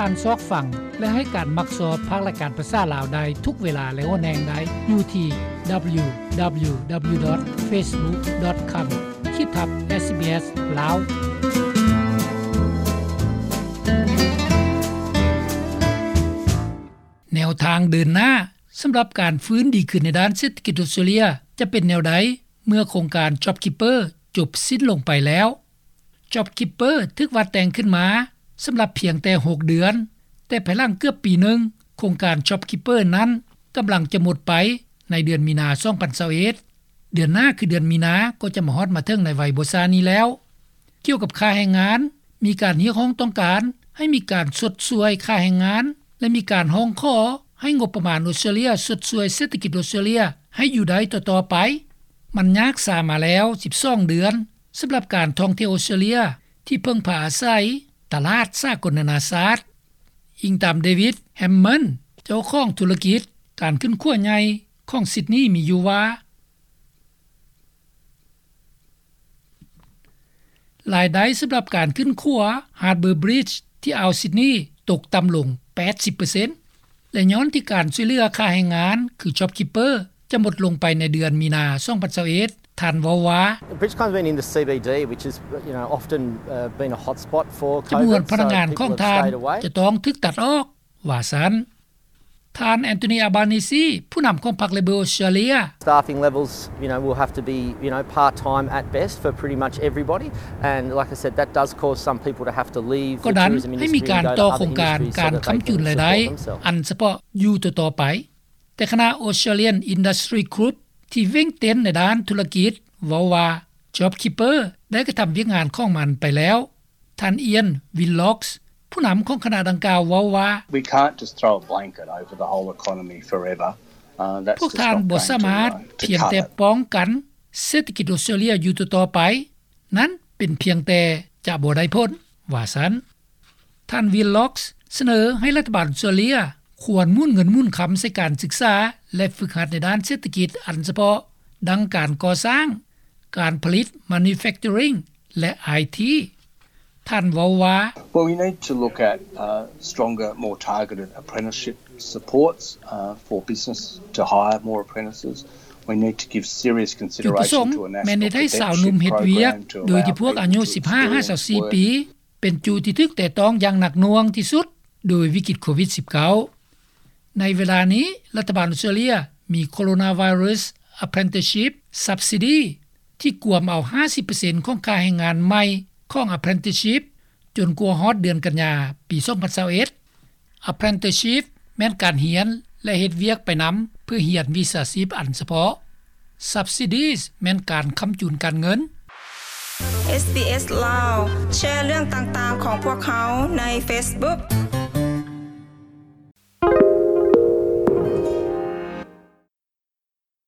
ທ່ານຊອກຟັງ ແລະ ໃຫ້ການມັກຊອບພາກລາຍການພາສາລາວໄດ້ທຸກເວລາ ແລະ ຫົນແຫ່ງໃດ ຢູ່ທີ່ www.facebook.com ຂີດທັບ SBS ລາວ. ແນວທາງເດີນໜ້າສຳລັບການຟື້ນດີຂຶ້ນໃນດ້ານເສດຖະກິດອອສເຕຣເລຍ ຈະເປັນແນວໃດ ເມື່ອໂຄງການ JobKeeper ຈົບສິ້ນລົງໄປແລ້ວ? JobKeeper ຖືກວາດແຕ່ງຂຶ້ນມາສຳລັບພຽງແຕ່ຫົກເດືອນ, ແຕ່ພາຍຫຼັງເກືອບປີໜຶ່ງ, ໂຄງການ JobKeeper ນັ້ນກຳລັງຈະໝົດໄປໃນເດືອນມີນາ ສອງພັນຊາວເອັດ. ເດືອນໜ້າຄືເດືອນມີນາກໍຈະມາຮອດມາເຖິງໃນໄວບໍ່ຊ້ານີ້ແລ້ວ. ກ່ຽວກັບຄ່າແຮງງານ, ມີການຮຽກຮ້ອງຕ້ອງການໃຫ້ມີການຊົດຊ່ວຍຄ່າແຮງງານ ແລະ ມີການຮ້ອງຂໍໃຫ້ງົບປະມານອອສເຕຣເລຍຊົດຊ່ວຍເສດຖະກິດອອສເຕຣເລຍໃຫ້ຢູ່ໄດ້ຕໍ່ໆໄປ. ມັນຍາກຊ້າມາແລ້ວສິບສອງເດືອນ ສຳລັບການທ່ອງທ່ຽວອອສເຕຣເລຍທີ່ເພິ່ງພາອາໄສຕະຫຼາດສາກົນນານາຊາດ. ອີງຕາມ David Hammond ເຈົ້າຂອງທຸລະກິດການຂຶ້ນຂົວໃຫຍ່ຂອງ Sydney ມີຢູ່ວ່າ ລາຍໄດ້ສຳລັບການຂຶ້ນຂົວ Harbour Bridge ທີ່ອ່າວ Sydney ຕົກຕ່ຳລົງແປດສິບເປີເຊັນ ແລະ ຍ້ອນທີ່ການຊ່ວຍເຫຼືອຄ່າແຮງງານ ຄື JobKeeper ຈະໝົດລົງໄປໃນເດືອນມີນາ ສອງພັນຊາວເອັດ. ທ່ານເວົ້າວ່າ The bridge comes in in the C B D, which is, you know, often, uh, been a hotspot for COVID, ຈຳນວນພະນັກງານຂອງທ່ານຈະຕ້ອງຖືກຕັດອອກ ວ່າຊັ້ນ. ທ່ານ Anthony Albanese ຜູ້ນຳຂອງພັກ Labor ອອສເຕຣເລຍ Staffing levels, you know, will have to be, you know, part-time at best for pretty much everybody. And like I said, that does cause some people to have to leave the tourism industry and go to other industries so that they can support themselves. ກໍນັ້ນໃຫ້ມີການຕໍ່ໂຄງການການຄ້ຳຈຸນລາຍໄດ້ອັນສະເພາະຢູ່ຕໍ່ໆໄປ. ແຕ່ຄະນະ Australian Industry Group ທີ່ເວັ່ງເຕັ້ນໃນດ້ານທຸລະກິດ ເວົ້າວ່າ JobKeeper ໄດ້ກະທຳວຽກງານຂອງມັນໄປແລ້ວ. ທ່ານ Ian Willox ຜູ້ນຳຂອງຄະນະດັ່ງກ່າວເວົ້າວ່າ We can't just throw a blanket over the whole economy forever. Uh, that's just not going to, uh, to cut it. ພວກທ່ານບໍ່ສາມາດພຽງແຕ່ປ້ອງກັນເສດຖະກິດອອສເຕຣເລຍຢູ່ຕໍ່ໆໄປ. ນັ້ນເປັນພຽງແຕ່ຈະບໍ່ໄດ້ຜົນ, ວ່າຊັ້ນ. ທ່ານ Willox ສະເໜີໃຫ້ລັດຖະບານອອສເຕຣເລຍຄວນໝູນເງິນໝູນຄຳໃສ່ການສຶກສາ ແລະ ຝຶກຫັດໃນດ້ານເສດຖະກິດອັນສະເພາະ ດັ່ງການກໍ່ສ້າງ, ການຜະລິດ manufacturing ແລະ ໄອທີ. ທ່ານເວົ້າວ່າ Well, we need to look at, uh, stronger, more targeted apprenticeship supports, uh, for business to hire more apprentices. We need to give serious consideration to a national credential program to allow young people to work. ຈຸດປະສົງແມ່ນເຮັດໃຫ້ຊາວໜຸ່ມເຮັດວຽກ ໂດຍທີ່ພວກອາຍຸສິບຫ້າຫາຊາວສີ່ປີ ເປັນຈຸດທີ່ຖືກແຕະຕ້ອງຢ່າງໜັກໜ່ວງທີ່ສຸດໂດຍວິກິດໂຄວິດສິບເກົ້າ. ໃນເວລານີ້, ລັດຖະບານອອສເຕຣເລຍມີ Coronavirus Apprenticeship Subsidy ທີ່ກວມເອົາຫ້າສິບເປີເຊັນຂອງຄ່າແຮງງານໃໝ່ຂອງ Apprenticeship ຈົນກວ່າຮອດເດືອນກັນຍາ ປີສອງພັນຊາວເອັດ. Apprenticeship ແມ່ນການຮຽນ ແລະ ເຮັດວຽກໄປນຳເພື່ອຮຽນວິຊາຊີບອັນສະເພາະ. Subsidies ແມ່ນການຄ້ຳຈຸນການເງິນ. SBS ລາວ ແຊເລື່ອງຕ່າງໆຂອງພວກເຮົາໃນ Facebook.